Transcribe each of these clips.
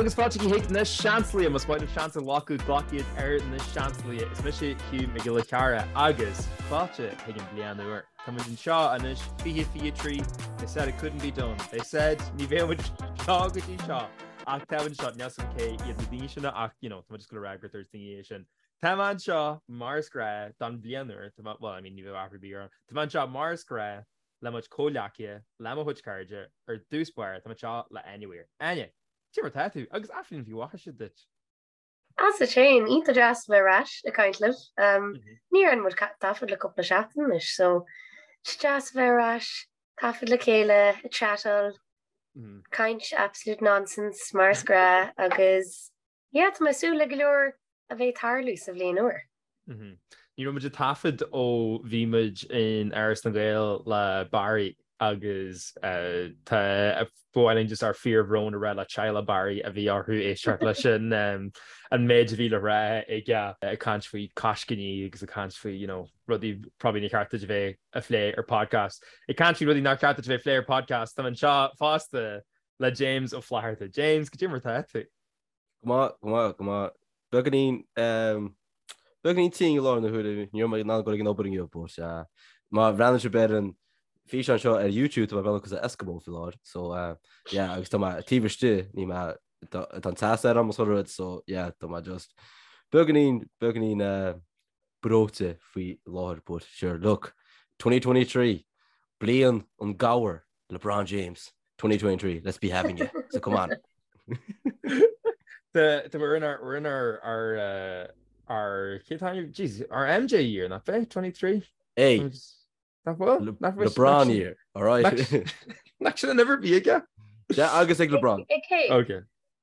Agus fáilte chuig na Seansálaithe, más maith libh seans a ghlacadh, glac iad ar na Seansálaithe. Is mise Hugh Mac Giolla Chearra agus fáilte chuig an bliain úr. Tá muid anseo anois, 2023, they said it couldn't be done. They said ní bheadh muid seo go dtí seo ach tá muid anseo, níl 's agam cé iad na daoine sin ach you know, tá muid just gonna rá gur dúirt daoine é sin. Tá mé anseo mar is gnáth don bhliain úr, tá mé, well I mean ní bheadh athrú ar bith ar an, tá mé anseo mar is gnáth le mo chuid comhghleacaithe, le mo chuid cairde, ar dtús báire, tá mé anseo le Áine Weir. Áine, cad é mar atá tú? Agus athbhliain mhaith duit. Agus duit féin, iontach deas a bheith ar ais ag caint libh. Ní dhearna muid taifead le cúpla seachtain anois, so is deas a bheith ar ais, taifead le chéile, ag chatáil, caint absolute nonsense mar is gnáth agus Yeah, tá mé ag súil le go leor a bheith ag tarlú sa bhliain úr. Ní raibh muid ag taifead ó bhí muid in Áras na nGael le Barry agus tá ba mhaith linn just ár fíorbhrón a rá le teaghlach Barry a bhí orthu éisteacht leis an an méid a bhí le rá aige ag caint faoi coiscíní agus ag caint faoi you know rudaí probably níor cheart duit a bheith a phlé ar podcast. Ag caint faoi rudaí nár cheart duit a bheith a phlé ar podcast, tá mé anseo fosta le James Ó Flatharta. James, cad é mar atá tú? Go maith, go maith, go maith. Beagáinín, beagáinín tinn i láthair na huaire, ní raibh mé in ann dul ag an obair inniu, but má bhreathnaíonn sibh ar an físeán seo ar YouTube, tá mé ag breathnú cosúil le Eskimo faoi láthair, so yeah, agus tá mé taobh istigh, ní mé, tá an teas ar am sort rud, so yeah, tá mé just beagáinín, beagáinín breoite faoi láthair, but sure, look, 2023, bliain an gabhair. LeBron James, 2023, let's be having it, so come on. The the we're in our we're in our our uh, our cé tá jeez our MJ year nach bhfuil 23? Hey Nach bhfuil? Nach bhfuil LeBron year, all right. Nach sin an uimhir a bhí aige? Yeah, agus ag LeBron. Ag cé? Okay.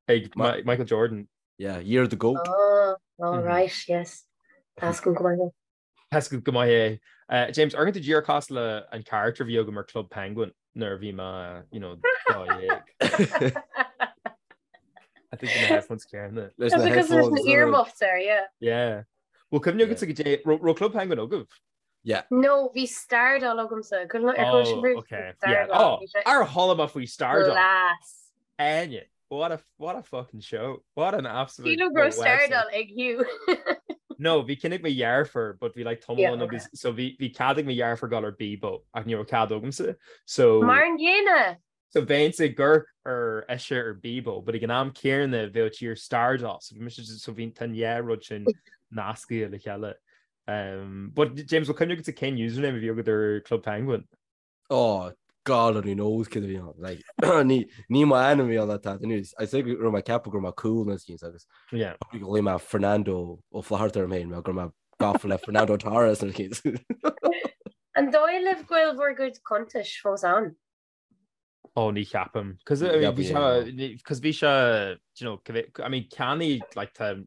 Ag Michael Jordan. Yeah, year of the goat. Oh, all right, yes. Tá go maith. Tá a fhios agat go maith é. James, amharcann tú díreach cosúil le an character a bhí agam ar Club Penguin nuair a bhí mé, you know, 12. I think na headphones céanna. Leis na Because there's an earmuffs there, yeah. Yeah. Bhfuil cuimhne agatsa goidé, raibh Club Penguin agaibh? Yeah. No, bhí Stardoll agamsa. Ar chuala sibh okay. Yeah. Oh, ar chuala mé faoi Stardoll. Class. Áine, what a, what a fucking show. What an absolute Sílim go raibh Stardoll ag Hugh. No, bhí ceann ag mo dheirfiúr, but bhí like tamall ann agus, so bhí, bhí cead ag mo dheirfiúr dul ar Bebo ach ní raibh cead agamsa. So. Mar an gcéanna! So bheinnse ag amharc ar ise ar Bebo, but ag an am céanna bheadh sí ar Stardoll, so bhí mise just, so bhí, tá an dhá rud sin nasctha le chéile. Um, but James, bhfuil cuimhne agatsa cén username a bhí agat ar Club Penguin? Oh, God only knows céard a bhí ann. Like, ní, ní mo ainm a bhí ann that news. I say go raibh mé ag ceapadh go raibh mé cool nó skins agus Yeah. go bhfuil mé Fernando Ó Flatharta orm féin, mar go raibh mé gafa le Fernando Torres nó skins. An dóigh libh go bhfuil bhur gcuid cuntais fós ann? Oh, ní cheapaim. Cos I mean, bhí sé, cos bhí sé, do you know, I mean, ceannaigh, like, tá,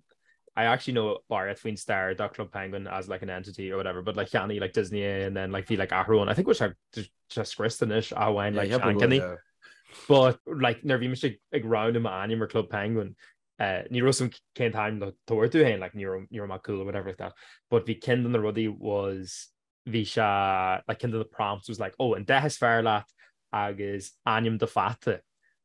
I actually know barraíocht faoin stair de Club Penguin as like an entity or whatever, but like cheannaigh like Disney é and then like bhí like athrú ann. I think bhfuil sé sé scriosta anois ach amháin like seancheannaí. But like nuair a bhí mise ag roghnú m'ainm ar Club Penguin, uh, ní raibh a fhios agam cén t-ainm le tabhairt dom féin, like ní raibh ní raibh mé cool or whatever like that. But bhí ceann de na rudaí was bhí sé, like, ceann de na prompts was like, oh, an dath is fearr leat agus ainm do pheata.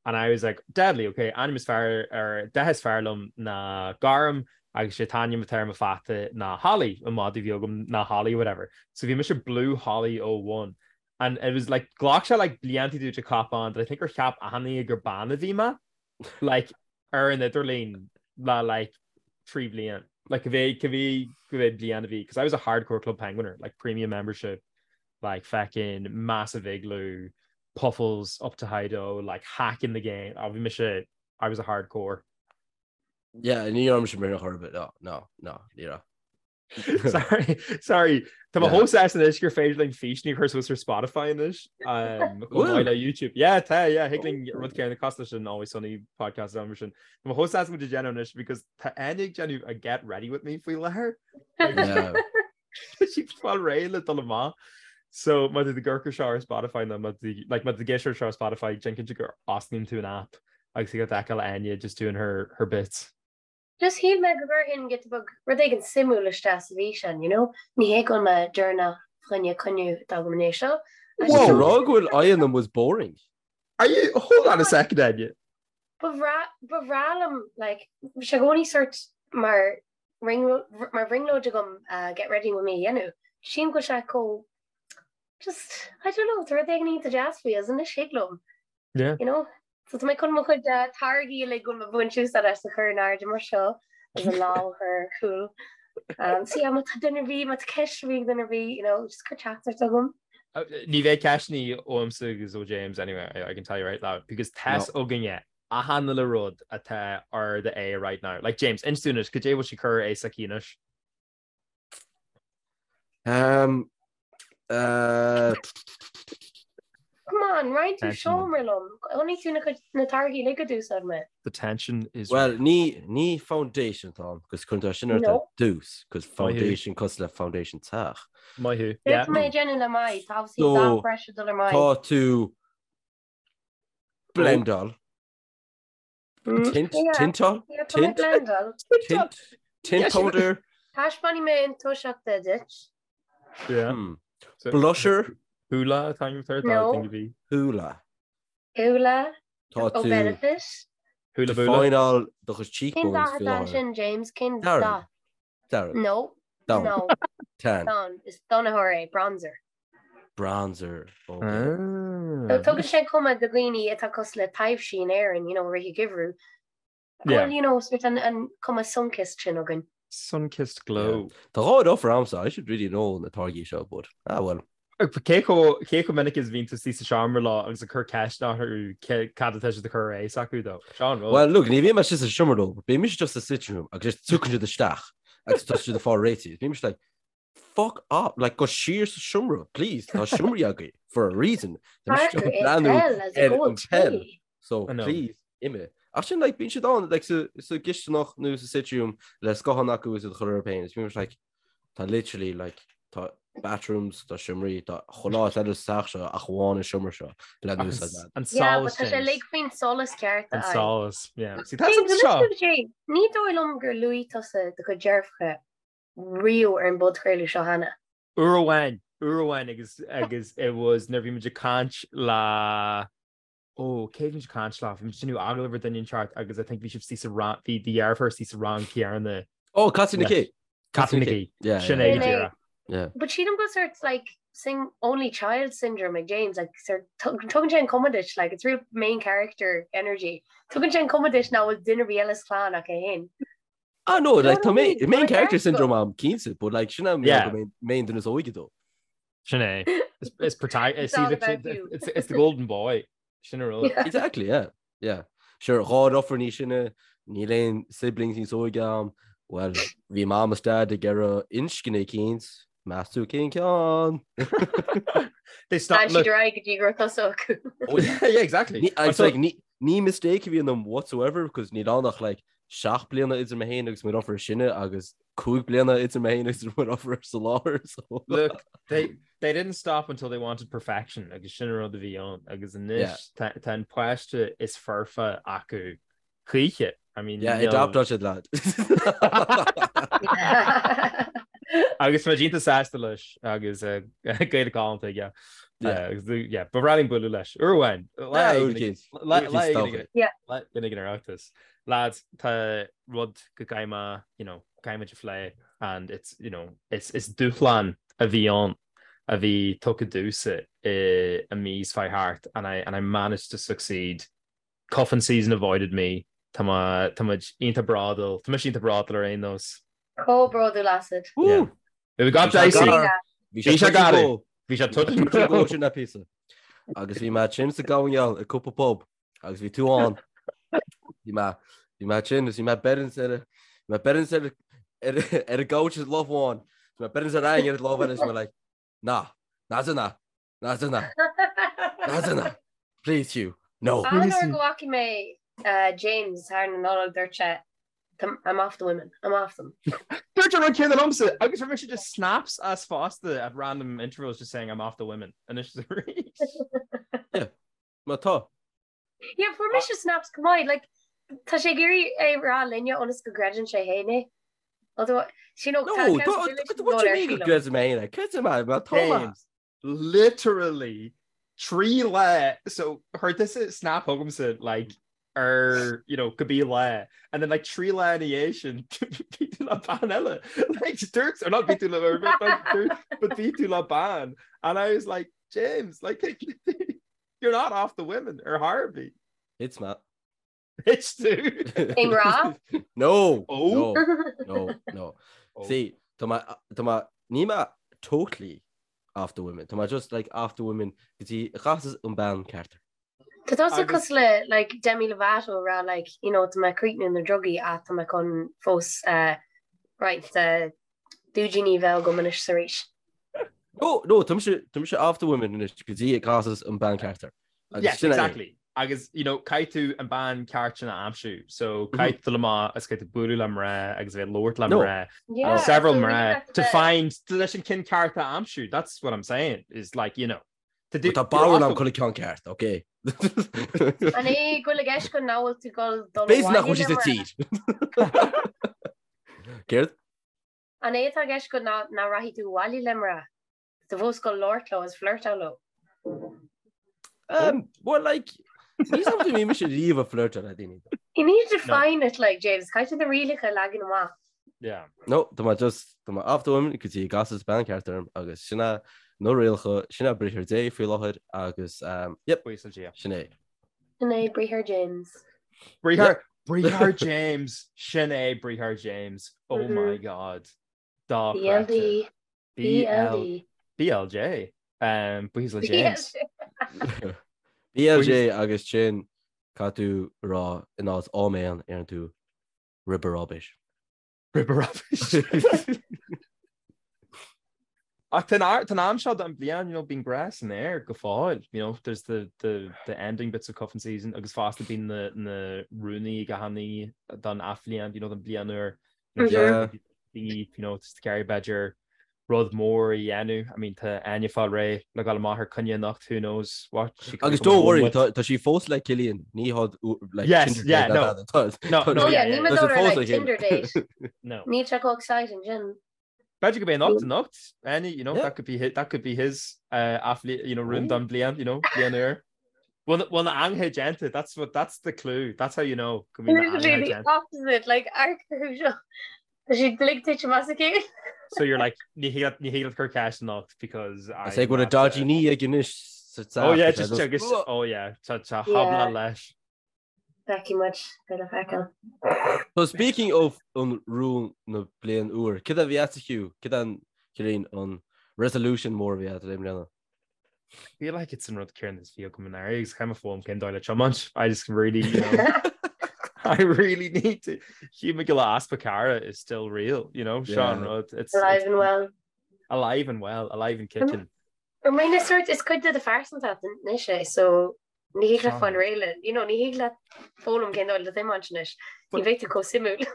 And I was like, deadly, ok, ainm is fearr, or dath is fearr liom ná gorm agus sé t-ainm atá ar mo pheata ná Holly, an madadh a bhí agam ná Holly, whatever. So bhí mise Blue Holly 01. And it was like, ghlac sé like blianta to cop on that I think gur cheap achan duine gur bean a bhí mé. Like, ar an idirlíon le like 3 bhliain. Like cibé cibé cibé bliain a bhí because I was a hardcore Club Penguiner, like premium membership, like feckin massive igloo, puffles up to Hido, like hacking the game. Oh, bhí mise I was a hardcore. Yeah, ní raibh mise mar chor ar bith. No, no, no, ní raibh. Sorry, sorry. Tá mé chomh sásta anois gur féidir linn físeáin a chur suas ar Spotify anois. Um, chomh maith le YouTube. Yeah, tá, yeah, thig linn rud céanna cosúil leis an Always Sunny podcast am sin. Tá mé chomh sásta muid ag déanamh anois because tá Áine ag déanamh a get ready with me faoi láthair. Yeah. Tá sí fáil réidh le dul amach. So má tá tú ag amharc air seo ar Spotify nó má tá like má tá tú ag éisteacht air seo ar Spotify, déan cinnte gur osclaíonn tú an app agus thig leat a fheiceáil Áine just doing her her bits. Just shíl mé go gcuirfinn giota beag rud éigin suimiúil isteach sa bhfíseán, you know? Ní hé go bhfuil mé deireanach fá choinne coinne atá agam inné seo. Whoa! Rá go bhfuil aghaidheanna was boring. Are you, hold on a second, Áine. Ba bhreá, ba bhreá liom, like, bhí sé i gcónaí sort mar mar bhrionglóid agam get ready with me a dhéanamh. Sílim go bhfuil sé chomh just, I don't know, tá rud éigin iontach deas faoi agus anois thig liom. Yeah. You know? So tá mé chun mo chuid táirgí uilig go bhfuil mé ag baint úsáid as a chur in airde mar seo agus an lámh a chur ar chúl. Um, so yeah, má tá duine ar bith, má tá ceist ar bith ag duine ar bith, you know, just cuir teachtaireacht chugam. Ní bheidh ceisteanna uaimse agus ó James anyway, I can tell you right now, because tá 's againne achan uile rud atá ar do aghaidh right now. Like James, inis dúinn anois, cad é bhfuil sí ag cur ar aghaidh s'aici anois? Um, uh, Come on, roinn tú seomra liom. Chonaic tú na cuid na táirgí uilig a d'úsáid mé. The tension is Well, ní ní foundation atá ann, cos cuireann tú sin ort ar dtús, cos foundation cosúil le foundation teach. Maith thú. Yeah. Tá mé ag déanamh le m'aghaidh, tá obviously dath breise dul ar m'aghaidh. Tá tú blendáil. Tint, tintáil? Tint? Blendáil. Tint? Tint powder? Taispeánfaidh mé an toiseacht duit. Yeah. Blusher? Hoola atá an third No. thing to be. Hoola. Hoola. Tá Ó tú Benefit. Hoola boola. defineáil do chuid Cén cheekbones dath faoi atá láthair. ansin, James? Cén Dearg. dath? Dearg. No. Donn. No. Tan. Donn. Is donnaitheoir é. Bronzer. Bronzer. Okay. So tugann sé cuma do dhaoine atá cosúil le taibhsí in Éirinn, you know, rith an gheimhridh. Yeah. Well, you know, sort an, an cuma sun-kissed sin againn. Sun-kissed glow. Tá dhá deirfiúr a'msa, I should really know na táirgí seo, but ah well. Cé chomh cé chomh minic is bhíonn tú istigh sa seomra leo agus ag cur ceist orthu cé cad atá siad ag cur ar aghaidh s'acu dó? Seo an rud. Well, look, ní bhíonn mé istigh sa seomra leo, but bíonn mise just sa sitting room agus just tiocfaidh siad isteach agus tá siad ag fáil réitithe. Bíonn mise like, fuck off, like go siar sa seomra, please, tá seomraí agaibh for a reason. Tá mise Parker ag é breathnú peil as a ar goal an peil, tae. so I know. please, imigh. Ach sin, like, bíonn siad ann, like, sa, sa gcisteanach nó sa sitting room le scáthán acu is iad a chur orthu féin. Is bíonn mise like, tá literally, like, tá bathrooms, tá seomraí, tá chuile áit eile sa teach seo ach amháin an seomra seo le Ach an, n-úsáid agat. an Yeah, but solas, tá sé James. uilig faoin solas ceart a An fháil. solas, yeah. See, tá James, san seo. anois Jay, ní dóigh liom gur luaigh tusa do chuid deirfiúracha riamh ar an bpodchraoladh seo cheana. Uair amháin, uair amháin agus agus it was nuair a bhí muid ag caint le ó cé bhí muid ag caint le, bhí muid ag déanamh agallamh ar duine inteacht agus I think bhí sibh istigh sa rang, bhí do dheirfiúr istigh sa rang céanna. Oh, Caitríona leis. Kay. Caitríona Kay. Yeah, Sin yeah, é Sin go é. díreach. Yeah. But sílim go sort like sing only child syndrome ag James like sort tugann sé an cuma duit like it's real main character energy. Tugann sé an cuma duit nach bhfuil duine ar bith eile sa chlann ach é féin. Ah no, like tá main, main character syndrome a'm cinnte, but like sin am Yeah. go main duine is óige dó. Sin é. It's, it's, protag- It's it's, all see, about you. it's, it's the golden boy. Sin an rud. Yeah. Exactly, yeah. Yeah. Sure, dhá dheirfiúr níos sine, níl aon siblings níos óige a'm. Well, bhí mam is dad ag iarraidh inscne eicínt, meas tú cén ceann? They stop, D'fhan look, siad ar aghaidh go dtí go raibh tusa acu. Oh, yeah. yeah, exactly. Ní, it's So- like, ní, ní mistake a bhí ionam whatsoever, because níl ann ach like 7 bliana idir mé féin agus mo dheirfiúr is sine agus 5 bliana idir mé féin agus mo dheirfiúr sa láthair. So. Look, they they didn't stop until they wanted perfection agus sin an rud a bhí ann agus anois tá tá an páiste is foirfe acu choíche. I mean, Yeah, níl- adoptáil siad lad. Agus tá iontach sásta leis agus eh, Gaeilge galánta aige. Yeah. Eh, agus, yeah, ba bhreá linn bualadh leis. Uair amháin. Lá Yeah, éigin uair ag- eicínt. lá- Uair lá eicínt éigin todhchaí. ag- Yeah. lá éigin ag an Oireachtas. Lads, tá rud go gcaithfidh mé, you know, caithfidh muid a phlé and it's, you know, it's, is dúshlán a bhí ann a bhí tugtha domhsa i, i mí seo chuaigh thart and I, and I managed to succeed. Cuffing season avoided me. Tá mé, tá muid iontach bródúil, tá mise iontach bródúil ar aon nós. Chomh bródúil asat. Yeah. Woo! We got Bhí sé dicey. gar. Bhí sé gar. Bhí sé touch and go go. sin na píosa. Agus bhí mé tinn sa gabhann i cúpla pub agus bhí tú ann. Bhí mé bhí mé tinn agus bhí mé beireann ar bhí mé beireann ar ar ar an gcouch is lámh amháin. Bhí mé beireann ar aon ar lámh eile is mé like ná ná ná ná ná ná ná please you no. An uair go bhfaca mé uh, James thar na Nollag dúirt sé I'm off the women, I'm off them. Dúirt an rud céanna liomsa agus rinne sé just snaps as fosta at random intervals just saying I'm off the women anois is arís. Yeah, má tá. Yeah, fuair mise snaps go maith, like, tá sé ag iarraidh é rá linne ionas go gcreideann sé féin é. Although, you know, No, tá tá- accountability what do you ar mean go sílim. gcreidim mé féin é? Creidim mé, má tá mé. James, literally trí lá so chuir tusa snap chugamsa like Ar, you know, cibé lá. And then like 3 lá ina dhiaidh sin bhí tú le bean eile. Like dúirt, or not bhí tú le, dúirt, but bhí tú le bean. And I was like, James, like you're not off the women ar chor ar bith. It's not. It's tú. I ngrá? No. Oh. No, no, no. Oh. See, tá mé, tá mé, níl mé totally off the women. Tá mé just like off the women go dtí a chasas an bean ceart. Tá tusa cosúil le like Demi Lovato ag rá like you know tá mé ag críochnú na drugaí ach tá mé chun fós eh, roinnt eh, dúidíní a bheith agam anois is arís. No, no, tá mise, tá mise off the women anois go dtí a chasas an bean ceart. Agus Yes, sin é. exactly. Agus, you know, caithfidh tú an bean ceart sin a aimsiú. So, caithfidh tú dul amach agus caithfidh tú bualadh le mná agus a bheith ag labhairt le No. mná. Yeah, Several so mná ní to bheith- find to leis an ceann ceart a aimsiú. That's what I'm saying. Is like, you know, Tá bodhrán agam chuile ceann ceart, ok? An é go bhfuil i gceist go nach bhfuil tú ag dul dul B'fhéidir nach bhfuil abhaile sí sa le mná? tír. Céard? An é atá i gceist go nach rachaidh tú abhaile le mná? Tá tú fós ag dul labhairt leo is flirteáil leo. Um, well, like, ní something bhí mise riamh ag flirteáil le daoine. You need to define it like, James, caithfidh tú na rialacha a leagan amach. Yeah. No, tá mé just, tá mé off the women go dtí a gcasas bean ceart orm agus sin é na rialacha, sin é briathar Dé faoi láthair agus, um, yep, Buíochas le Dia. sin é. Sin é briathar James. Briathar, briathar James, sin é briathar James. Oh Mhm. my God. Dochreidte. BLD. BLD. BLJ. Um, buíochas le James. BLJ agus sin caithfidh tú rá in áit áiméan deireann tú Ribberobish. Ribberobish. Ach tá an am seo den bhliain, you know, bíonn grá san aer go fóill, you know, there's the, the, the ending bits of cuffing season agus fosta bíonn na, na rúin ag achan duine don athbhliain, you know, don bhliain úr. Yeah. You know, just ag iarraidh b'fhéidir rud mór a dhéanamh. I mean, tá Áine ag fáil réidh le dhul amach ar coinne anocht, who knows what she could be Agus coming don't home worry, with. tá tá sí fós le Cillian, ní hod like Yes, Tinder yeah, date no. ná tada. Tá- No, tá- no, Oh yeah, yeah, ní yeah. mé tá sí dul ar fós like le chéile. Tinder date. No. Níl sé chomh exciting sin. B'fhéidir gurb é anocht anocht, Áine, you know, Yeah. that could be his, that could be his uh, athlete, you know, rún don bliain, you know, bliain úr. Bhfuil bhfuil na hangaithe déanta, that's what, that's the clue, that's how you know go mbíonn na Literally hangaithe the déanta. opposite, like amharc orthu seo. Tá siad uilig tite amach as a chéile. So you're like, ní thig leat- ní thig leat cur ceist anocht because I say go bhfuil a I'm not, uh, dodgy knee ag anois sa Oh yeah, teach, just I agus, just- oh yeah, tá tá Yeah. habla leis. Feicfidh muid, beidh le feiceáil. So speaking of an rún na bliain úr, cad a bhí agat Hugh? Cad é an Ciarán an resolution mór a bhí agat i mbliana? I feel like it's an rud céanna is bhí agam anuraidh agus caithfidh mé foghlaim cén dóigh le tiomáint. I just really, you know, I really need to. Hugh McGill easpa cara is still real, you know, Seo an Yeah. rud. It's, Alive it's and well. alive and well, alive and kicking. Or mar na sort is cuid de do phearsantacht anois é, so ní thig leat Seo. fáil réidh le, you know, ní thig leat foghlaim cén dóigh le tiomáint anois. Ní bheidh tú chomh suimiúil.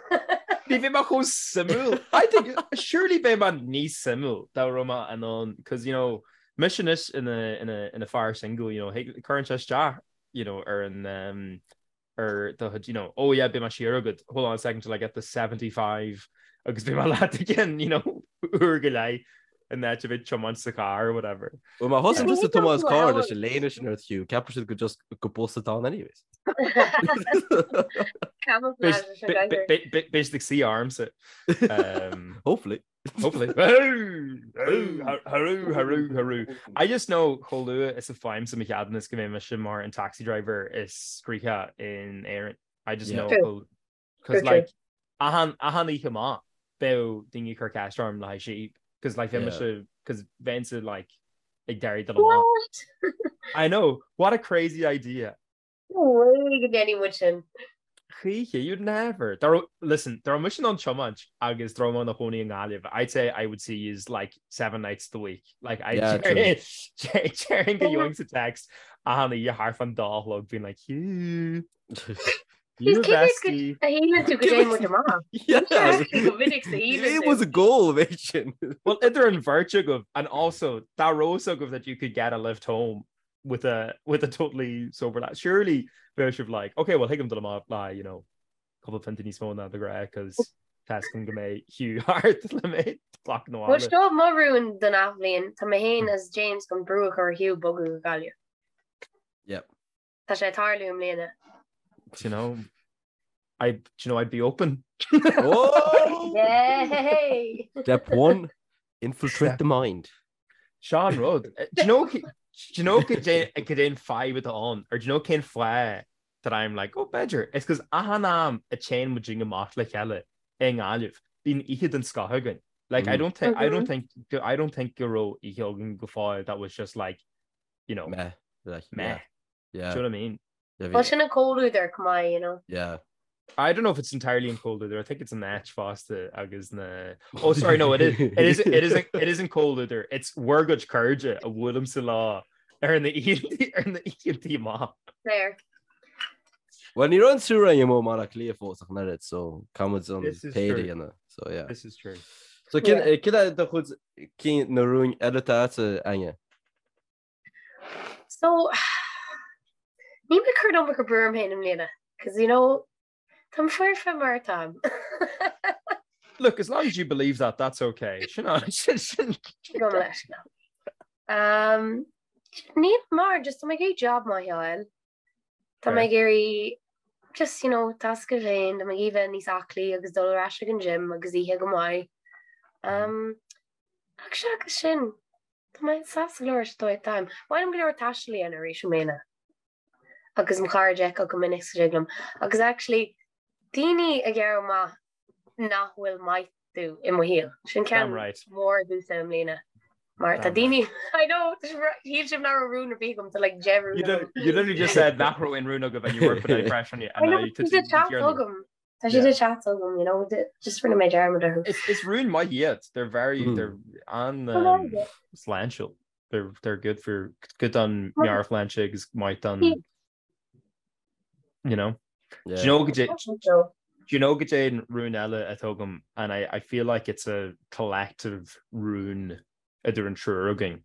Ní bheidh mé chomh suimiúil. I think surely beidh mé níos suimiúil dá raibh mé in ann, cos you know, mise anois ina ina ina fear single, you know, cuireann sé isteach, you know, ar an um, ar do chuid, you know, oh yeah, beidh mé siar agat, hold on a second till I get the 75 agus beidh mé leat again, you know, uair go leith in áit a bheith ag tiomáint sa charr or whatever. Well, má thosaíonn Ní tusa ag tiomáint thig carr leat leis an léine sin ort Hugh, ceapfaidh siad go just go bus atá ann anyways. Camouflage leis an gcathair. Beidh siad ag suí ormsa. Um, Hopefully. Hopefully. Harú, harú, harú. I just know chomh luath is a fhaighimse mo cheadúnas go mbeidh mise mar an taxi driver is scríofa in Éirinn. I just Yeah. know True. because True, true. like achan achan oíche amach beidh daoine ag cur ceist orm le haghaidh síob because like bheidh Yeah. mise because bheinnse like ag deireadh dul amach. What? I know what a crazy idea. No way go ndéanfaidh muid sin. Choíche, you'd never. Dá raibh, listen, dá raibh mise in ann tiomáint agus dá raibh mé i mo chónaí i nGaillimh, I'd say I would see yous like seven nights the week. Like, I'd Yeah, true. déarfainn go gheobhainnse text achan oíche thart fán dá a chlog being like, Hugh, you Cé mhéad go bestie. a shíleann tú go dtéann muid amach? Yeah. Go minic sa shíleann It tú. was a goal, mate, sin. Well, idir an bheirt agaibh and also dá raibh a fhios agaibh that you could get a lift home with a with a totally sober lad. Surely bheadh sibh like, okay, well thig liom dul amach le, you know, cúpla pionta níos mó ná de ghnáth cos tá a fhios agam go mbeidh Hugh thart le mé a ghlacadh Bhuel abhaile. seo mo rún don athbhliain, tá mé féin is James chun brú a chur ar Hugh bogadh go Gaillimh. Yep. Tá sé ag tarlú i mbliana. Do you know, I, do you know, I'd be open. Oh! Yay! Step 1, infiltrate the mind. Seo an rud. Do you know, do you know cad é an fadhb atá ann? Or do you know cén fáth that I'm like, oh, b'fhéidir. It's 'cause achan am a téann muid amach le chéile i nGaillimh, bíonn oíche den scoth againn. Like, I don't think, I don't think, I don't think go raibh oíche againn go fóill that was just like, you know, Meh. Like, meh. Yeah. Do you know what I mean? Yeah, Well, sin an comhluadar chomh maith, you know. Yeah. I don't know if it's entirely an comhluadar. I think it's an áit fosta agus na Oh sorry no it is it is it isn't it isn't comhluadar. It's bhur gcuid cairde a bhuailimse leo ar na ar na oícheanta amach. Fair. Well, ní raibh an triúr againn amuigh i mBaile Átha Cliath fós ach an oiread, so caithfimid an This is péire true. a dhéanamh. So, yeah. This is true. So, cén cén é do chuid cinn na rúin eile atá agat, Áine? So, níl mé ag cur an iomarca brú orm féin i mbliana, 'cause you know, táim foirfe mar atáim. Look, as long as you believe that, that's okay. Sin an, sin, sin. Gabh mo leithscéal. Um, níl mar, just tá mé ag iarraidh job maith a fháil. Tá mé ag iarraidh just, you know, tasc a féin, tá mé ag iarraidh bheith níos aclaí agus dul ar ais ag an gym agus ithe go maith. Um, ach seachas sin, Tá mé sásta go leor leis an dóigh atáim. Ba mhaith liom go leor taistil a dhéanamh arís i mbliana. Agus mo chairde a fheiceáil go minic sa dtig liom. Agus actually, daoine a ghearradh amach nach bhfuil maith domh i mo shaol. Sin ceann Damn right. mór domhsa i mbliana. Mar tá Damn daoine, I know, shíl sibh nach raibh rún ar bith agam, tá like 10 rún You agam. you literally just said nach raibh aon rún agaibh and you were putting any pressure on you I and know, now you tá siad ag teacht agam. Tá siad ag teacht agam, you know, just rinne mé dearmad orthu. Is is rún maith iad. They're very mm. they're an um, sláintiúil. They're they're good for good don meabhairshláinte agus maith don you know. Yeah. Do you know do you know cad é an rún eile atá agam and I, I feel like it's a collective rún idir an triúr againn.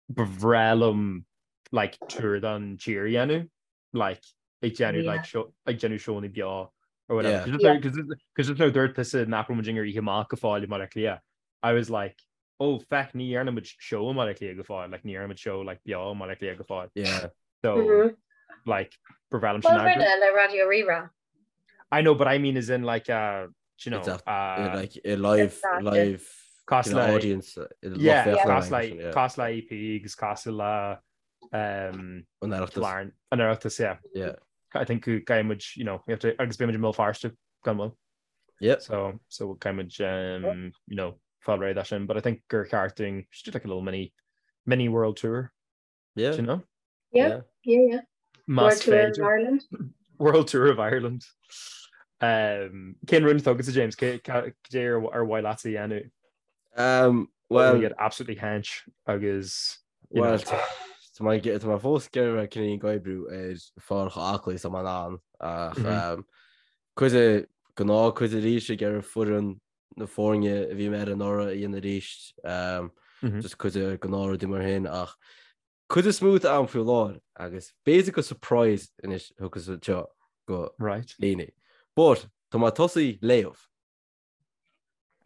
Ba bhreá liom like tour don tír a dhéanamh like ag déanamh like show ag déanamh seónna beo or whatever. Yeah. Because just now dúirt tusa nach raibh muid ar oíche amach go fóill i mBaile Átha Cliath. I was like, oh feck ní dhearna muid show i mBaile Átha Cliath go fóill, like ní dhearna muid show like beo i mBaile Átha Cliath go fóill. Yeah. So Mm -hmm. like ba bhreá liom sin Well, rinne le Raidió Rí-Rá. I know, but I mean as in like uh, you know, It's a, uh, like a live live cosúil le audience yeah, cosúil le cosúil le EP agus cosúil le um, an Oireachtas. An Oireachtas, yeah. Yeah. I think go gcaithfidh muid, you know, we have to agus beidh muid i mBéal Feirste gan mhoill. Yeah. So so caithfidh muid um, you know, fáil réidh leis sin, but I think gur cheart dúinn just do like a little mini mini world tour. Yeah. Do you know? Yeah, yeah, yeah. Más World Tour of féidir. Ireland. World Tour of Ireland. Um, cén rún atá agatsa James cé cé ar ar mhaith leatsa a dhéanamh? Um, Well, well, get absolutely hench agus you well, know, tá mé tá mé fós ag iarraidh cineál ag oibriú ar fáil chomh aclaí is atá mé in ann ach Mhm. um, cuid de gnáth cuid arís ag iarraidh foireann na foirne a bhí mé ar anuraidh a dhéanamh arís um, Mhm. just cuid de gnáthrudaí mar sin ach cuid is mó d'am faoi láthair agus b'fhéidir gur surprise anois a thiocfas anseo go Right. daoine. But tá mé tosaí léamh.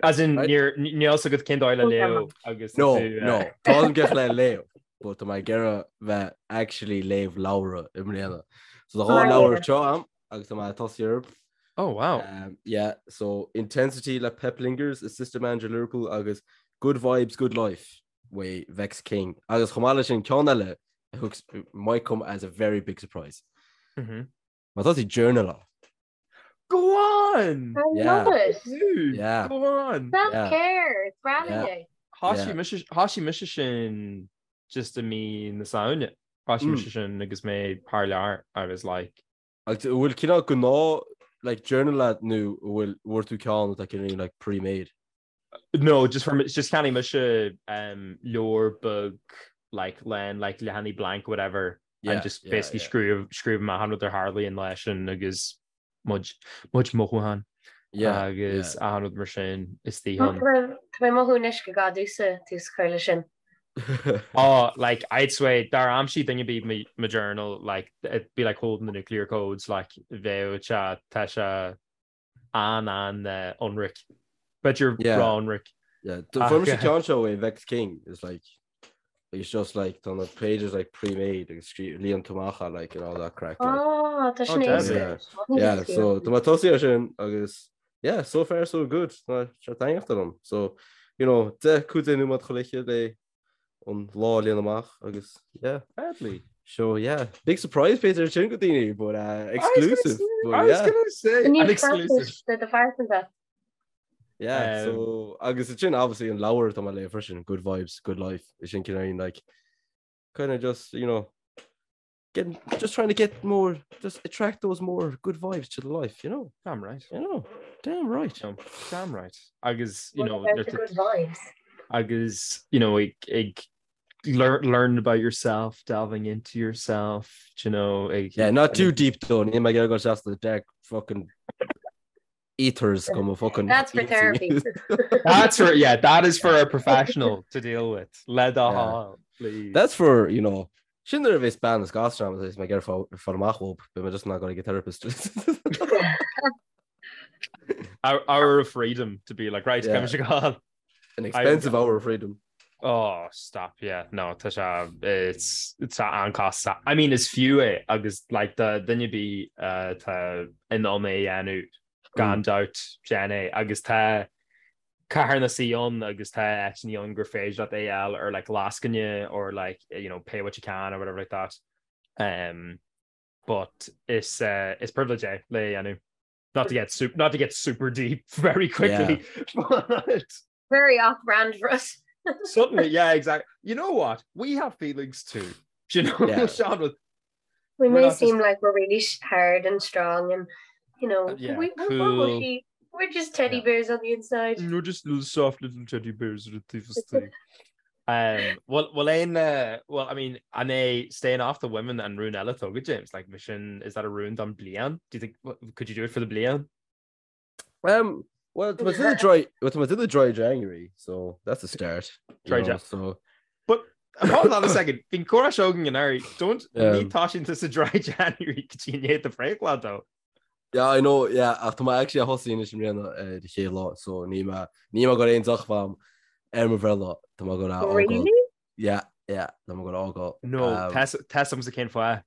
As in Right. níor níl a fhios agat cén dóigh le léamh agus tá No, tú, no, eh, tá an gach le léamh, but tá mé ag iarraidh bheith actually léamh leabhra i mbliana. So tá dhá Mar leabhar léamh. anseo a'm agus tá mé ag tosaí orthu. Oh wow. Um, yeah, so Intensity le Pep Lijnders, assistant manager Liverpool agus Good Vibes, Good Life uaidh Vex King. Agus chomh maith leis sin ceann eile a thug might come as a very big surprise. Mm -hmm. Má tá sí journaláil. Go on! I Yeah. love it. Dude, Yeah. Go on! Self-care. It's rallying. Thosaigh mise thosaigh mise sin just i mí na Samhna. Thosaigh Mm. mise sin agus mé thar lear. I was like, Agus an bhfuil cineál gnáth like journal agat nó an bhfuil bhfuair tú ceann atá cineál like pre-made? No, just for just cheannaigh mise um, leabhar beag like lán like leathanaigh blank whatever Yeah, and just yeah, basically yeah. scríobh scríobh amach achan rud a tharlaíonn leis sin agus mo chuid mothúchán Yeah, agus yeah. achan rud mar sin is Tá dóigh. mé ag mothú anois go gcaithfidh tusa tús a chur leis sin. Oh, like I'd swear dár aimsigh duine ar bith mo mo journal like it'd be like holding the nuclear codes like bheadh sé tá sé an an uh, ionraic. B'fhéidir Yeah. ró-ionraic. Yeah, fuair mise Ach, ceann seo uaidh Vex King is like. It's just like tá na pages like pre-made agus scrí líon tú amach é like and all that craic like. Oh, tá sin Oh, éasca. Yeah, yeah, so tá mé tosaithe ar sin agus yeah, so far so good. Tá sé taitneamhach liom. So, you know, 10 15 nóiméad chuile oíche le an lá a líonadh amach agus yeah. Deadly. So yeah, big surprise b'fhéidir sin go daoine, but uh, exclusive. But I was yeah. gonna say, Ní an exclusive. de do phearsanta. Yeah, Um, so agus sin obviously an leabhar atá mé ag léamh freisin, Good Vibes, Good Life, is sin cineál like kind of just, you know, getting just trying to get more, just attract those more good vibes to the life, you know, Damn right. you know, damn right. No, damn right. Agus, you What know, about nuair the tá- good vibes? agus, you know, ag, ag learn, learn about yourself, delving into yourself, do you know, ag, Yeah, not too deep though. Níl mé ag iarraidh dul isteach sna dark fucking ethers go mo fucking That's for therapy. That's for yeah, that is for a professional to deal with. Le do Yeah. thoil, please. That's for, you know, sin nuair a bheas bean is gasúr agam is mé ag iarraidh fáil amach uathu, beidh mé just in ann dul ag an therapist. Our hour of freedom to be like, right, Yeah. yeah. come An expensive hour of freedom. Oh, stop, yeah. No, tá sé it's it's an-chostasach. I mean, is fiú é agus like do dhuine ar bith uh, tá in ann é a dhéanamh gan dabht déan é agus tá carthanais ann agus tá áiteanna ann gur féidir leat é a fháil ar like lascaine or like you know pay what you can or whatever like that. Um, but is uh, is privilege é le é a dhéanamh. Not to get super, not to get super deep very quickly, but Very off-brand for us. suddenly, yeah, exactly. You know what? We have feelings too. Do you know, Yeah. Sean? With We We're may not just- seem like we're really hard and strong and, you know, Uh, yeah, we, we're, cool. we're mushy. We're just teddy Yeah. bears on the inside. We're just little soft little teddy bears with the thing. Um, well, well, aon, uh, well, I mean, an é staying off the women an rún eile atá agat, James? Like, mission, is that a rún don bliain? Do you think, could you do it for the bliain? Um, well, tá mé ag déanamh dry, well, tá mé ag déanamh dry January, so that's a start. you Dry know, Jan- So, But hold on a second. Bhí an comhrá seo againn anuraidh. Don't ní Um, toisíonn tú sa dry January go dtí i ndiaidh do bhreithlá though. yeah, I know, yeah, ach tá mé actually ag tosú anois i mbliana ar an chéad lá, so níl mé, níl mé ag goil aon deoch a bheith agam ar mo bhreithlá, tá mé ag goil a fhágáil. Really? Yeah, yeah, tá mé ag goil a fhágáil. No, Um, tá a fhios agamsa cén fáth.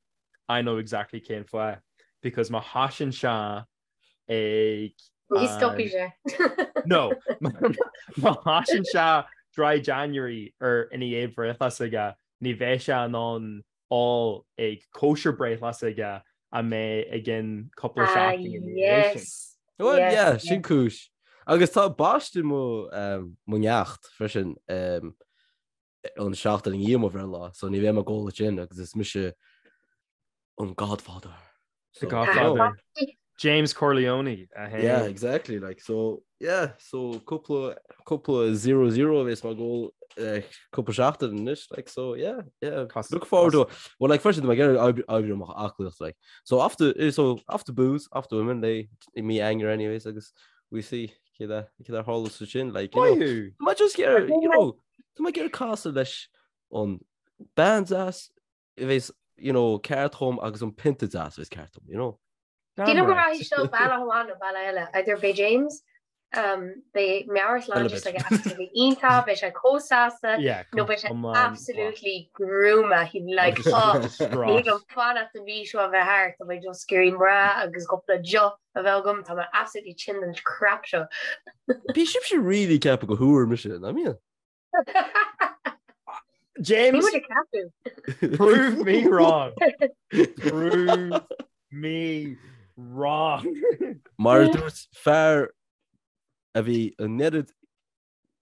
I know exactly cén fáth. Because má thosaíonn sé ag Ní stopfaidh sé. No, má thosaíonn sé dry January ar ina dhiaidh breithlá s'aige, ní bheidh sé in ann ól ag cóisir breithlá s'aige a mbeidh i gcionn cúpla Ah, seachtain ina dhiaidh sin. yes. Well, Yes, yeah, yes. sin cúis. Agus tá baisteadh mo, um, mo neacht freisin um, an seachtain i ndiaidh mo bhreithlá, so ní bheidh mé ag ól ansin agus is mise an Godfather. The So, Godfather. James Corleone. A haon. Yeah, exactly. Like, so, yeah, so cúpla, cúpla 0-0 a bheas mé ag ól eh, cúpla seachtain anois, like, so, yeah, yeah. Cos- Look forward to it. Well, like, freisin, tá mé ag iarraidh oibriú ar m'aclaíocht, like. So, after, eh, so, after booze, after women, they, i mí Eanáir anyways, agus we see céard a, céard a tharlós ansin, like, you know. Maith thú. Tá mé just ag iarraidh, you know, tá mé ag iarraidh casadh leis an bean deas a bheas, you know, ceart dhom agus an pionta deas a bheas ceart dhom, you know. Damn Damn go right. rachaidh seo bealach amháin nó bealach eile, either beidh James, um, beidh meabhairshláinte s'aige absolutely iontach, beidh sé chomh sásta, Yeah, nó beidh sé come on. absolutely gruama, he'd be like, oh, ní thig liom fanacht an mhí seo a bheith thart, tá mé just ag iarraidh mná agus cúpla deoch a bheith agam, tá mé absolutely tinn den crap seo. Bhí sibhse really ag ceapadh gur thúr mise, nach mbíonn? James, Ní muid ag ceapadh. prove me wrong. Prove me wrong. Mar a dúirt fear a bhí an oiread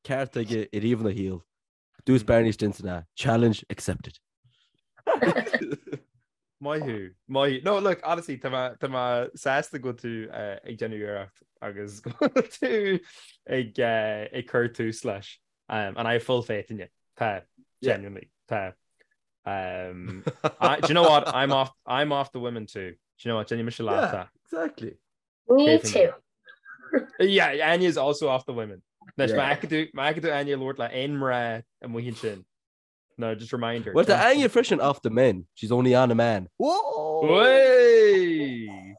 ceart aige ariamh ina shaol, dúirt Barney Stinson é, challenge accepted. Maith thú. Maith thú. No, look, honestly, tá mé tá mé sásta go bhfuil tú eh, ag déanamh iarracht agus go bhfuil tú ag eh, ag cur tús leis. Um, and I have full faith in you. Tá, Yeah. genuinely. Tá. Um, I, do you know what? I'm off I'm off the women too. Do you know what? Déanfaidh mise leat. Yeah. Exactly. Me Cé too. Yeah, Anya is also off the women. Anois, Yeah. má fheiceann tú má fheiceann tú Anya ag labhairt le aon mná amuigh ansin. No, just remind her. Well, tá Anya freisin off the men. She's only on a man. Whoa! Way!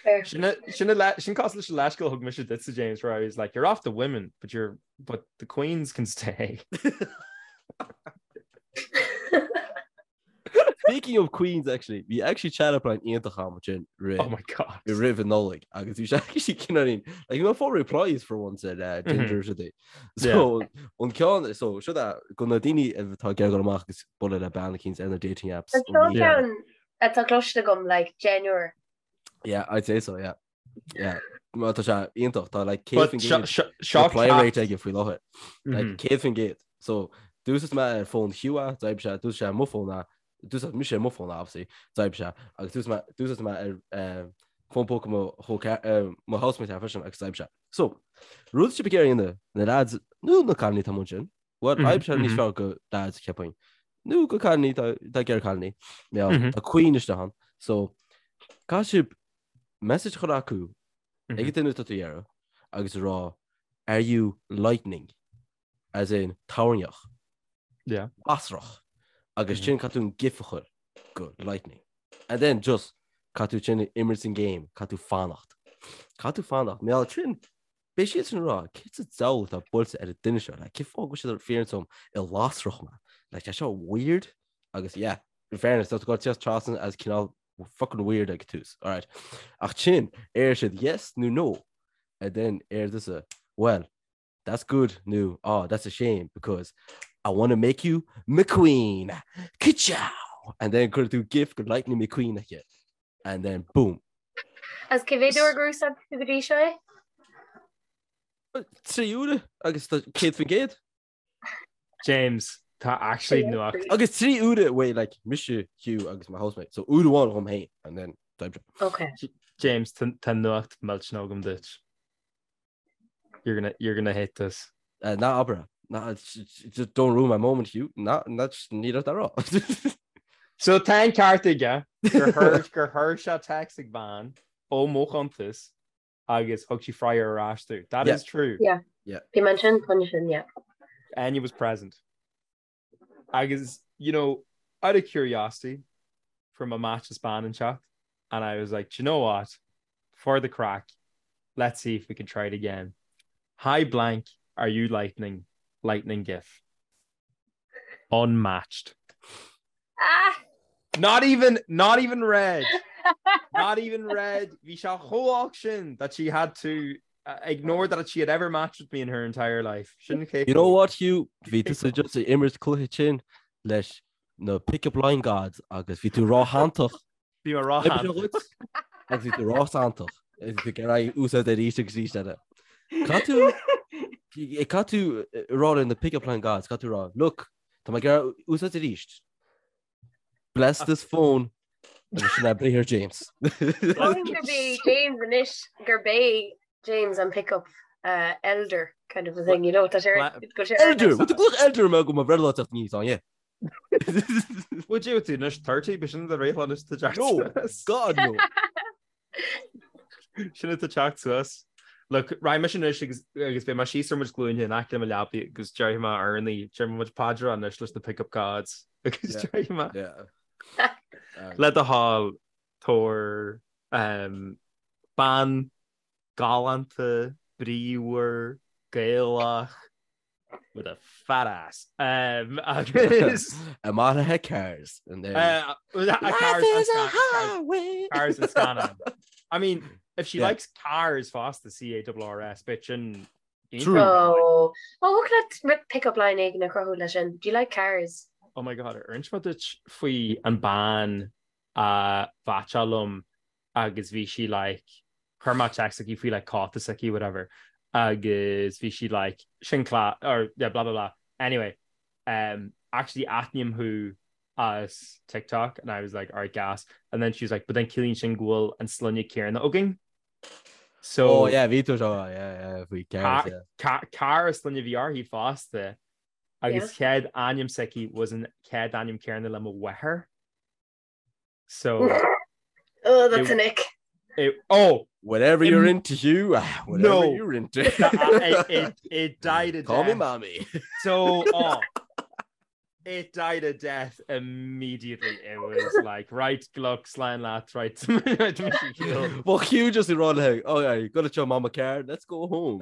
Fair. Sin sin cosúil leis an leithscéal a thug mise duitse James where I was like you're off the women but you're but the queens can stay. Speaking of queens actually, bhí actually chat up line iontach agam ansin roimh Oh my god. roimh an Nollaig agus bhí sé actually cineáilín like you know full replies for once ar uh, Tinder mm -hmm. é. So an ceann so seo é go na daoine atá ag dul amach agus bualadh le bean eicínt ar na dating apps. Ceann atá cloiste agam like genuine. Yeah, I'd say so, yeah. Yeah. Má tá sé iontach tá like 100% reply rate aige faoi láthair. Like 100%. So d'úsáid mé ar fón Hugh é, d'oibrigh sé, d'úsáid sé mo fón é, d'úsáid mise ar mo fón é obviously, d'oibrigh sé, agus d'úsáid mé d'úsáid mé ar eh, fón póca mo chol eh, mo housemate é freisin agus d'oibrigh sé. So, rud sibh ag iarraidh a dhéanamh, na lads nó na cailíní atá amuigh ansin, well, oibreoidh sé níos fearr go lads cheapfainn. Nó go cailíní tá tá ag iarraidh cailíní. Yeah, tá queen isteach ann. So, caithfidh sibh message a chur acu ag an duine atá tú ag iarraidh agus a rá are you lightning? As in toirneach. Yeah. Lasrach. Agus sin caithfidh tú an gif a chur go lightning. And then just caithfidh tú sin imirt an game, caithfidh tú fanacht. Caithfidh tú fanacht. Mar sin beidh siad sin ag rá cé sa diabhal atá buailte ar an duine seo, like, cén fáth go bhfuil siad ag fiafraí díom an lasrach mé. Like, tá seo weird agus yeah, in fairness, tá tú ag dul trasna as cineál fucking weird ag tús, alright. Ach sin, ar siad yes nó no, and then ar tusa, well, that's good nó oh, that's a shame because I want to make you McQueen. Ka-chow! And then cuir tú gif go Lightning McQueen aici. And then boom. As cé mhéad uair gur úsáid tú go dtí seo é? 3 uaire agus 100%. James, tá actually nuacht. Agus 3 uaire wait like mise Hugh agus my housemate. So uair amháin dhom féin and then d'oibrigh. Okay. James, tá nuacht millteanach agam duit. You're gonna, you're gonna hate this. Uh, ná abair. Ná, just don't ruin my moment, Hugh. Ná, ná, ní raibh rá. So tá an ceart aige gur chuir gur chuir sé text ag bean ó mo chuntas agus thug sí freagra ar ais domh. That Yeah. is true. Yeah. Yeah. Bhí mé ansin chun sin, yeah. Enya was present. Agus, you know, out of curiosity, fuair mé match as bean inteacht, and I was like, do you know what? For the craic, let's see if we can try it again. Hi blank, are you lightning? Lightning gif. Unmatched. Ah! Not even, not even read. Not even read. Bhí sé chomh holc sin that she had to uh, ignore that she had ever matched with me in her entire life. Sin You know what, Hugh? Bhí tú just ag imirt cluiche sin leis na pick-up line gods agus bhí tú róshantach. Bhí mé róshantach. Agus bhí tú róshantach. Agus bhí tú ag iarraidh úsáid arís agus arís eile. Caithfidh tú caithfidh tú rá le na pick-up line gods, caithfidh tú rá, look, tá mé ag iarraidh úsáid arís. Bless this phone. Agus sin é briathar James. Mothaím gurb é James anois gurb é James an pick-up uh, elder kind of a thing, you know, tá sé go sé Elder! What the glach elder me go ma breithlá teacht níos an, yeah. Would you tú anois 30 b'shin do bhreithlá anois tá teacht No, suas. God no. Sin atá teacht suas. Look, raghaidh mise anois agus agus beidh mé síos ar mo ghlúine in aice le mo leabaidh agus déarfaidh mé urnaí, déarfaidh mé mo chuid paidreacha anois leis na pick-up gods agus Yeah. déarfaidh mé Yeah. le do thoil tabhair um, bean galánta, bríomhar, Gaelach, with a fat ass. Um, agus Amach le cars and then uh, a Life cars is and a scan- cars, highway. cars and scannáin. I mean, if she Yeah. likes cars fosta C-A-R-R-S, bitch and True. Oh, oh, thig leat pick-up line éigin a chruthú leis sin. Do you like cars? Oh my god, ar inis mé duit faoi an bean a mheaitseáil liom agus bhí sí like chuir mé text chuici faoi like cóta s'aici whatever agus bhí sí like sin class or yeah blah blah blah anyway um actually aithním thú as TikTok and I was like alright gas and then she was like but then ciallaíonn sin go bhfuil an sloinne céanna againn so Oh yeah bhí tú seo yeah yeah faoi cars yeah. Car Carr an sloinne a bhí uirthi fosta agus chéad ainm s'aici was an chéad ainm céanna le mo mháthair. So Oh, that's an ick. It, oh! Whatever you're into, Hugh. Ah, whatever No. you're into. It, it, it died a Call me death. mommy. So, oh, it died a death immediately. It was like, right, look, slán leat, right. Well, Hugh just ag rá léi, oh yeah, you got to show mama car, let's go home.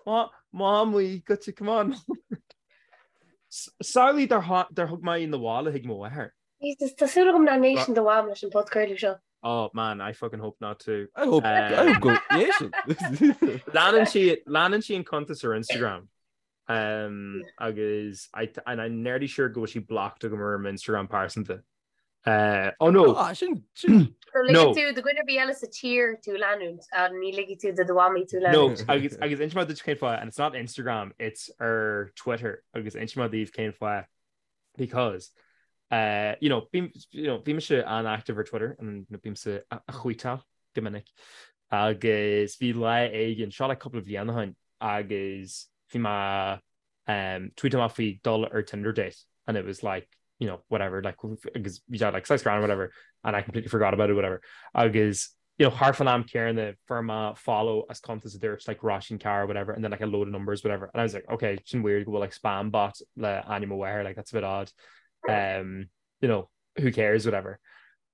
Mom, mom, we got you, come on. Samhlaigh dár thug mé í 'na bhaile chuig mo mháthair. Jesus, tá súil agam nach n-éisteann do mham leis an podchraoladh seo. Oh man, I fucking hope not too. I hope, I hope go n-éisteann. Leanann sí, leanann sí an cuntas ar Instagram. Um, agus I, and I'm nearly sure go bhfuil sí blocked agam ar m'Instagram pearsanta. Uh, oh no! Ah, sin, sin. So ligeann tú do dhuine ar bith eile sa tír tú leanúint, ach ní ligfidh tú do do mhamaí tú leanúint. No, agus, agus inseoidh mé duit cén fáth, and it's not Instagram, it's ar Twitter, agus inseoidh mé daoibh cén fáth, because, uh, you know, bím, you know, bhí mise an-active ar Twitter, and bímse a tweetáil go minic, agus bhí lá éigin, seo like cúpla bliain ó shin, agus bhí mé um, tweetáil amach faoi dul ar Tinder date and it was like, you know, whatever, like, agus bhí sé like saghas grand whatever and I completely forgot about it whatever. Agus, you know, thart fán am céanna fuair mé follow as cuntas a dúirt like Róisín Carr whatever and then like a load of numbers whatever and I was like, okay, sin weird go bhfuil like spam bot le ainm mo mháthar, like that's a bit odd. Um, you know, who cares whatever.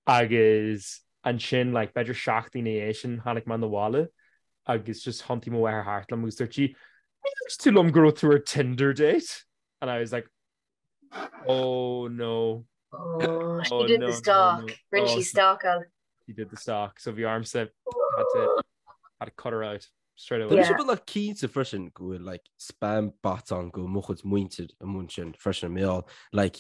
Agus ansin like b'fhéidir seachtain ina dhiaidh sin tháinig mé 'na bhaile agus just thiontaigh mo mháthair thart liom agus dúirt sí, Níor dhúirt tú liom go raibh tú ar Tinder date? And I was like, Oh no. Oh, she did the stalk. Rinne sí stalkáil. She did the stalk. So bhí ormsa had to had to cut her out. Straight away. Tá mise beagnach cinnte freisin go bhfuil like spam bots ann go bhfuil mo chuid muintir i mbun sin freisin mar gheall like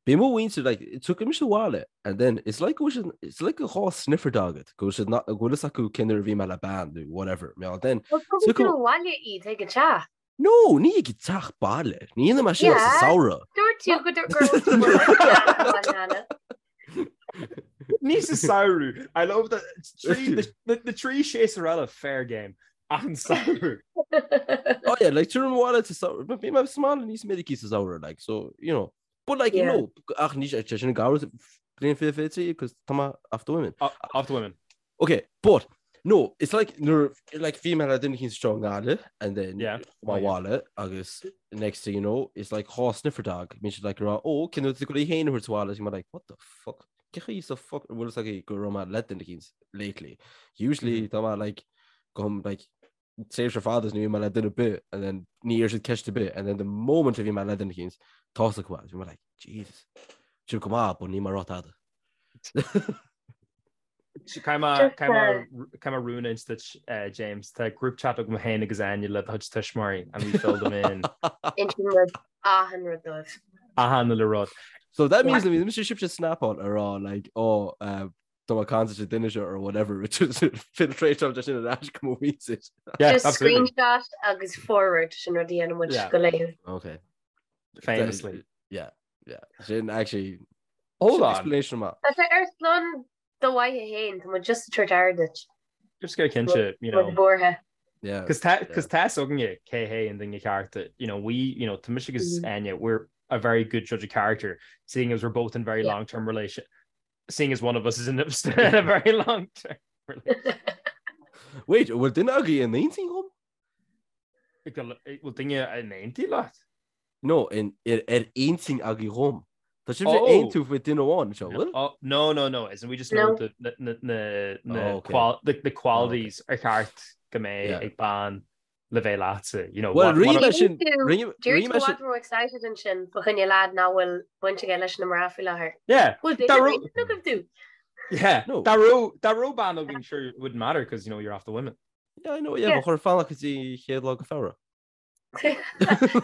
bíonn mo mhuintir like tiocfaidh mise abhaile and then it's like go bhfuil siad it's like a dhá sniffer dog agat go bhfuil siad go bhfuil fhios acu cén uair a bhí mé le bean nó whatever mar gheall then Well tugann tú abhaile iad ag an teach. No, ní ag an teach baile. Ní dhéanaim é sin sa samhradh. Dúirt tú go raibh tú ag an teach Ní sa samhradh. I love that na trí séasúr eile fair game ach an samhradh. Oh yeah, like tuair bhile to bhí mé sa mbaile níos minicí sa samhradh like so you know but like you know ach ní sé sin gabhar bliain 2023 cos tá mé off the women. Off the women. Okay, but no, it's like nuair like bhí mé le duine éicint anseo i nGaillimh and then Yeah. ma bhaile agus next thing you know it's like dhá sniffer dog bíonn siad like ag rá ó cén uair tú ag dul í féin a thabhairt abhaile is mé like what the fuck cén chaoi sa fuck an bhfuil fhios acu go raibh mé le duine éicint lately usually tá mé like gabhaim like tréimhse fada is ní bhíonn mé le duine ar bith and then ní iarrann siad ceist ar bith and then the moment a bhí mé le duine éicint tá fhios acu bhí mé like Jesus sin go maith but níl mé ag rá tada Caithfidh mé rún a inse duit, James. Tá group chat agam féin agus Áine le do chuid tuismitheoirí and we fill them in. Insíonn muid achan rud dóibh. Achan uile rud. So that means that mise sibhse snapáil a rá like oh uh, tá mé ag caint le duine seo or whatever which is filtration de sin ar ais go mo mhuintir. Yeah, Just absolutely. screenshot agus forward sin rud a dhéanann muid Yeah. go laethúil. Okay. Famously. Yeah, yeah. Sin actually Hold on. Explanation maith. Tá sé ar son do mhaithe féin, tá muid just ag tabhairt aire duit. Just go cinnte, you know. Muid buartha. Yeah. Cos tá cos tá fhios againne cé hé an duine ceart, you know, we, you know, tá mise agus Áine, we're a very good judge of character, seeing as we're both in very long-term relation, seeing as one of us is in a, in a very long-term relationship. Wait, bhfuil duine agaibh in intinn dhom? Bhfuil duine in intinn leat? No, in, ar, ar intinn agaibh dhom. Tá sibhse ag aontú faoi duine amháin anseo, bhfuil? Oh, no, no, no, as in we just know the, na, na, na, na, Oh, okay. qual, the, the qualities ar cheart go mbeidh Yeah. ag bean le bheith leatsa, you know. Well, what, rinne what, mé sin, rinne D'éirigh rinne tú mé sin, i bhfad ró excited ansin fá choinne leaid nach bhfuil baint aige leis na mná faoi láthair. Yeah. Bhfuil duine Dá ar raibh- intinn agaibh tú? Yeah. No. Dá raibh, dá raibh bean againn, sure, it wouldn't matter because, you know, you're off the women. Yeah, I know, yeah, Yeah. ba chóir fanacht go dtí chéad lá go Feabhra.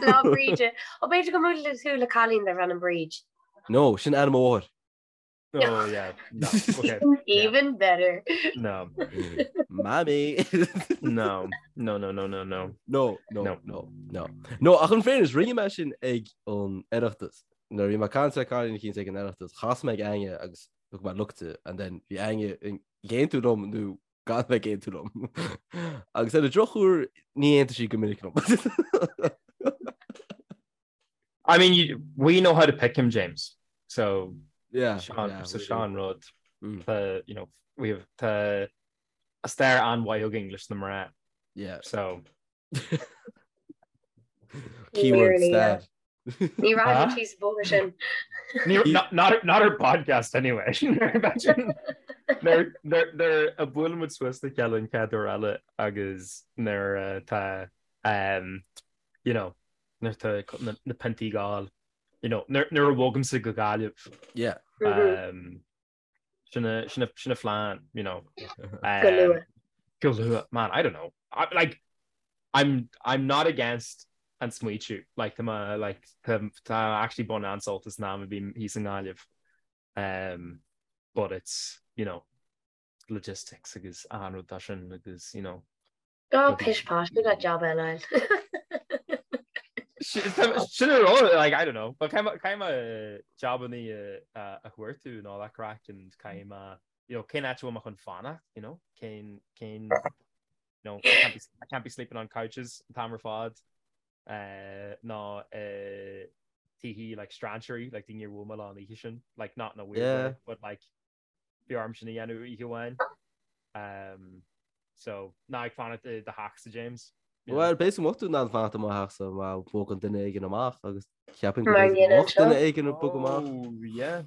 Lá Bríde. Ó b'fhéidir go mbuailfidh tú le cailín darb ainm Bríd. No, sin ainm mo mháthair. Oh, yeah. No. Okay. Even better. No. Mammy. No. No, no, no, no, no. No, no, No. no, no. No, ach in fairness, rinne mé sin ag an Oireachtas. Nuair a bhí mé ag caint le cailín eicínt ag an Oireachtas, chas mé ag Áine agus thug mé look di, and then bhí Áine ag aontú liom nó gan bheith ag aontú liom. Agus ar an drochuair ní aontaíonn sí go minic liom. I mean, you, we know how to pick him, James. So, yeah, Sean, yeah, so we Sean do. rud. Mm. Tá, you know, we have tá stair an-mhaith againn leis na mná. Yeah. So. Keyword Nearly, yeah. stair. Ní rachaidh muid síos an bóthar sin. Ní, not, not, not our podcast anyway. Imagine nuair nuair a bhuaileann muid suas le chéile an chéad uair eile agus nuair atá um, you know, nuair atá na, na piontaí ag gabháil. You know, nuair a bhogaimse go Gaillimh. Yeah. Um, sin a, sin a, sin a phlean, you know. Um, Go luath. Go luath. Man, I don't know. I, like, I'm, I'm not against an smaoitiú. Like, tá mé, like, tá, tá actually ag baint an-sult as an am a bhím thíos i nGaillimh. Um, but it's, you know, logistics agus an rud sin agus, you know, Go pish posh, we got job eile. Sin a rá, like, I don't know, but caithfidh mé jabannaí a chuartú and all that craic and caithfidh mé, you know, cén áit a bhfuil mé chun fanacht, you know, cén, cén, you know, I can't be, I can't be sleeping on couches an t-am ar fad, uh, ná uh, tithe, like, strainséirí, like, daoine ar bhuail mé leo an oíche sin, like, not in a weird yeah. way, but like, bhí orm sin a dhéanamh oíche amháin. Um, so, ná ag fanacht i do theachsa, James. Well, b'fhéidir go mbeadh tú in ann fanacht i mo theachsa má bhogann duine éigin amach agus ceapaim go mbeadh duine éigin ag bogadh amach. Oh, yeah.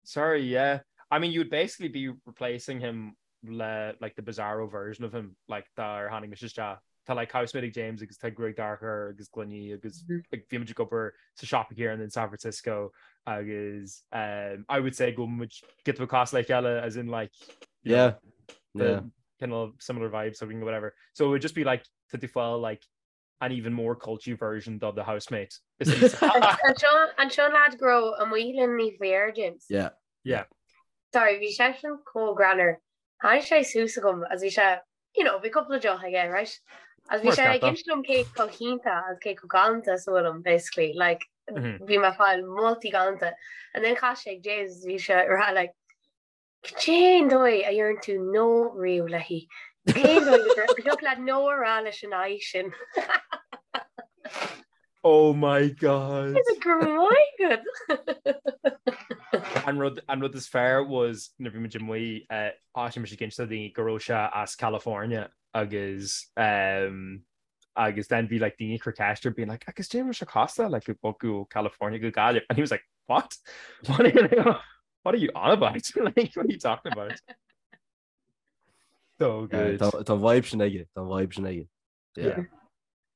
Sorry, yeah. I mean, you would basically be replacing him le, like, the bizarro version of him, like, dár tháinig mise isteach. Tá like housemate ag James agus tá gruaig dorcha air agus gloiní agus like, bhí muid ag obair sa siopa céanna in San Francisco agus um, I would say go bhfuil muid giota beag cosúil le chéile as in like you know, Yeah. the kind of similar vibes or whatever. So it would just be like tá tú ag fáil like an even more culty version of the housemate. An seo an seo an lad go raibh amuigh linn ní bhféar James. Yeah. Yeah. Sorry, bhí seisean chomh greannmhar. Tháinig sé suas chugam agus bhí sé you know, bhí cúpla deoch aige, right? Agus bhí sé ag inse dom cé chomh hiontach agus cé chomh galánta is a bhfuilim, basically, like, bhí mé ag fáil moltaí galánta. And then chas sé ag James, bhí sé ag rá, like, cén dóigh a ndeireann tú no riamh léi? Cén dóigh go dtiocfadh leat no a rá leis an aghaidh sin? Oh my God. Is it go raibh maith agat? An rud an rud is fearr was nuair bhí muid amuigh eh, thosaigh mise ag inse do dhaoine go raibh sé as California agus um, agus then bhí like daoine ag cur ceist air being like agus cad é a raibh sé cosúil like ag bogadh ó California go Gaillimh and he was like what? What are you, what are you on about? Like what are you talking about? So good. Tá tá vibe sin aige, tá vibe sin aige. Yeah.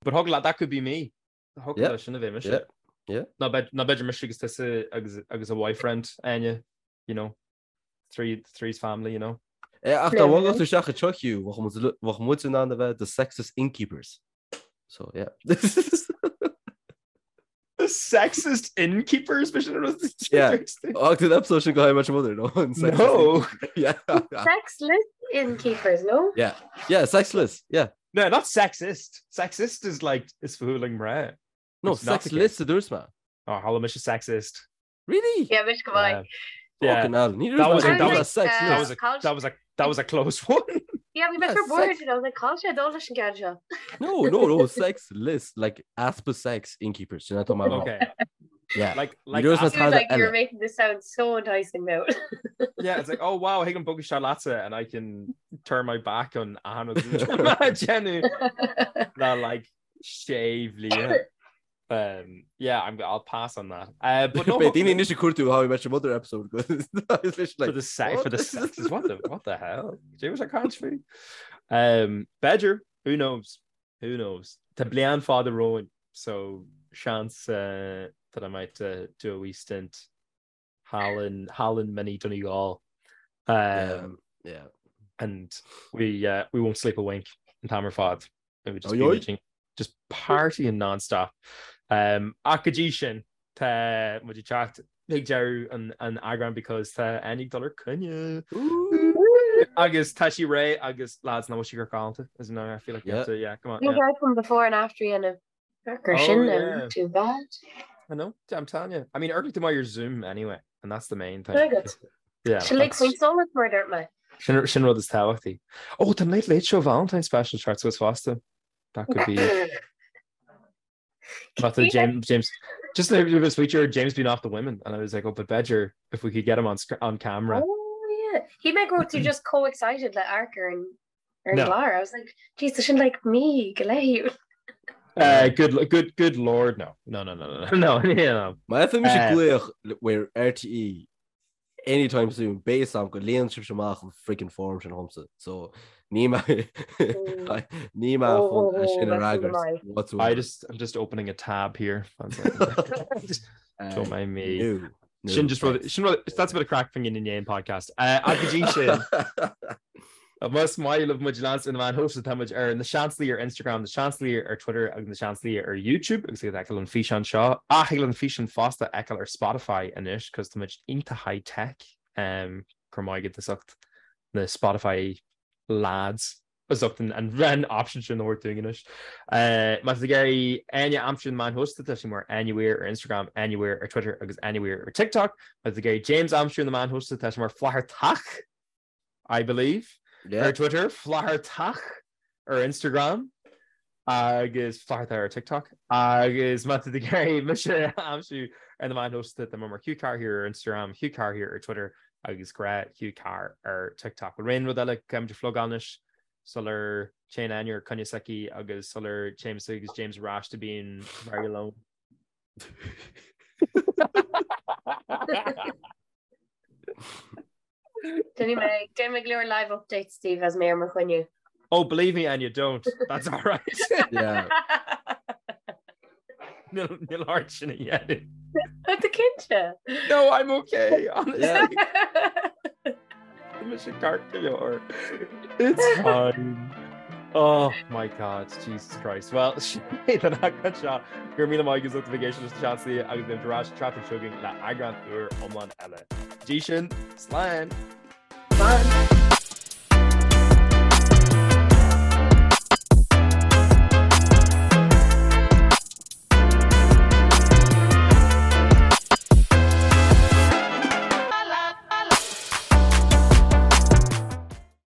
But thig leat, that could be me. Thig Yeah. leat sin a bheith mise. Yeah. Yeah. Ná b'fhéidir ná b'fhéidir mise agus tusa agus agus a boyfriend, Áine, you know, three three's family, you know. Eh, ach dá mbogfadh tú isteach anseo Hugh, bheadh muid bheadh muid in ann a bheith the sexist innkeepers. So, yeah. The sexist innkeepers b'shin an rud Yeah. Ach an episode sin de How I Met Your Mother, no? An sexist No. innkeeper. Yeah. Sexless innkeepers, no? Yeah. Yeah, sexless. Yeah. No, not sexist. Sexist is like is fuath le mná. No, It's not the sexless a dúirt mé. Oh, chuala mise sexist. Really? Yeah, mise go maith. Yeah. Fucking hell. Ní That was a- dúirt mé that was- sexless. That was a that was a that was a close one. Yeah, bhí mé Yeah, for bored, sex- and I was like, cá bhfuil sé ag dul leis an gceann seo. No, no, no, sexless, like easpa sex innkeepers. Sin atá mé a rá. Okay. Yeah. Like like dúirt mé as- He was Tada like, you're eile. making this sound so enticing now. Yeah, it's like, oh wow, thig liom bogadh isteach leatsa and I can turn my back on achan Jenny le like sé bhliain. Um, yeah, I'm, I'll pass on that. Uh, but no, Beidh daoine anois ag cuartú How I Met Your Mother episode. It's for like, the sex, for the what? sexes, what the what the hell? Cad é a bhí sé ag caint faoi. Um, b'fhéidir, who knows? Who knows? Tá bliain fada romhainn, so seans uh, that I might uh, do a wee stint thall in thall in Mini Donegal. Um, Yeah, yeah. and we uh, we won't sleep a wink an t-am ar fad. We would just be Oi, oi. reaching, just partying non-stop. Um, ach go dtí sin tá muid ag teacht ag deireadh an, an eagráin because tá Áine ag dul ar coinne. Agus tá sí réidh agus lads nach bhfuil sí galánta is no I feel like you have Yeah. to yeah come on You yeah. guys from before and after you and Gur Oh, sin yeah. not too bad. I know I'm telling you I mean amharcann tú maith ar Zoom anyway and that's the main thing. Very good. Yeah. Sin like that's- faoin solas mar dúirt mé. Sin sin rud is tábhachtaí. Oh, tá Late Late Show Valentine special ag teacht suas fosta. That could be not the James James just a bit of feature James being off the women and I was like oh but b'fhéidir if we could get him on on camera. Oh yeah. Shíl mé go raibh tú just chomh excited le amharc ar an ar an No. gclár. I was like, jeez, tá sin like mí go leith. Uh, good good good lord no. No no no no no no no. Má fhaigheann mise Eh. glaoch ó RTÉ anytime soon, beidh a fhios agam go líonann sibhse amach an freaking form sin dhomsa. So ní mé ní mé Oh, chun é sin a oh, that's fhreagairt maith. whatsoever. I just I'm just opening a tab here. One second. Just- Don't mind me. Sin just rud, sin rud, that's a bit of craic fá choinne an podcast. Ach go dtí sin, más maith libh muid a leanstan ar na meáin shóisialta, tá muid ar Na Seansálaithe ar Instagram, Na Seansálaithe ar Twitter agus Na Seansálaithe ar YouTube agus ag feiceáil an físeán seo. Ach thig leat an físeán fosta a fheiceáil ar Spotify anois cos tá muid iontach high tech. Um, go raibh maith agat as ucht na Spotify lads. as ucht an option sin a thabhairt dúinn anois. Má tá tú ag iarraidh Áine a aimsiú ar na meáin shóisialta, tá sí mar Áine Weir ar Instagram, Áine Weir ar Twitter agus Áine Weir ar TikTok. Má tá tú ag iarraidh James a aimsiú ar na meáin shóisialta, tá sé mar Flathartach, I believe, ar Twitter, Flathartach ar Instagram agus Flathartach ar TikTok. Agus má tá tú ag iarraidh mise a aimsiú ar na meáin shóisialta, tá mé mar Hugh Carr here ar Instagram, Hugh Carr here ar Twitter agus gnáth Hugh Carr ar TikTok. Bhfuil aon rud eile caithfimid a phlugáil anois sular téann Áine ar coinne s'aici agus sular téimse agus James ar ais to being very alone? Déanfaidh mé déanfaidh mé go leor live updates daoibh as mé ar mo choinne. Oh, believe me, Anya, don't. That's all right. Yeah. Níl ort sin a dhéanamh. Tá tú cinnte? No, I'm okay, honestly. Tá mise ceart go leor. It's fine. Oh my God, Jesus Christ. Well, sin é don eagrán seo. Go raibh míle maith agat as ucht a bheith ag éisteacht leis na Seansálaithe agus beimid ar ais an tseachtain seo chugainn le eagrán úr iomlán eile. Go dtí sin, slán! Slán!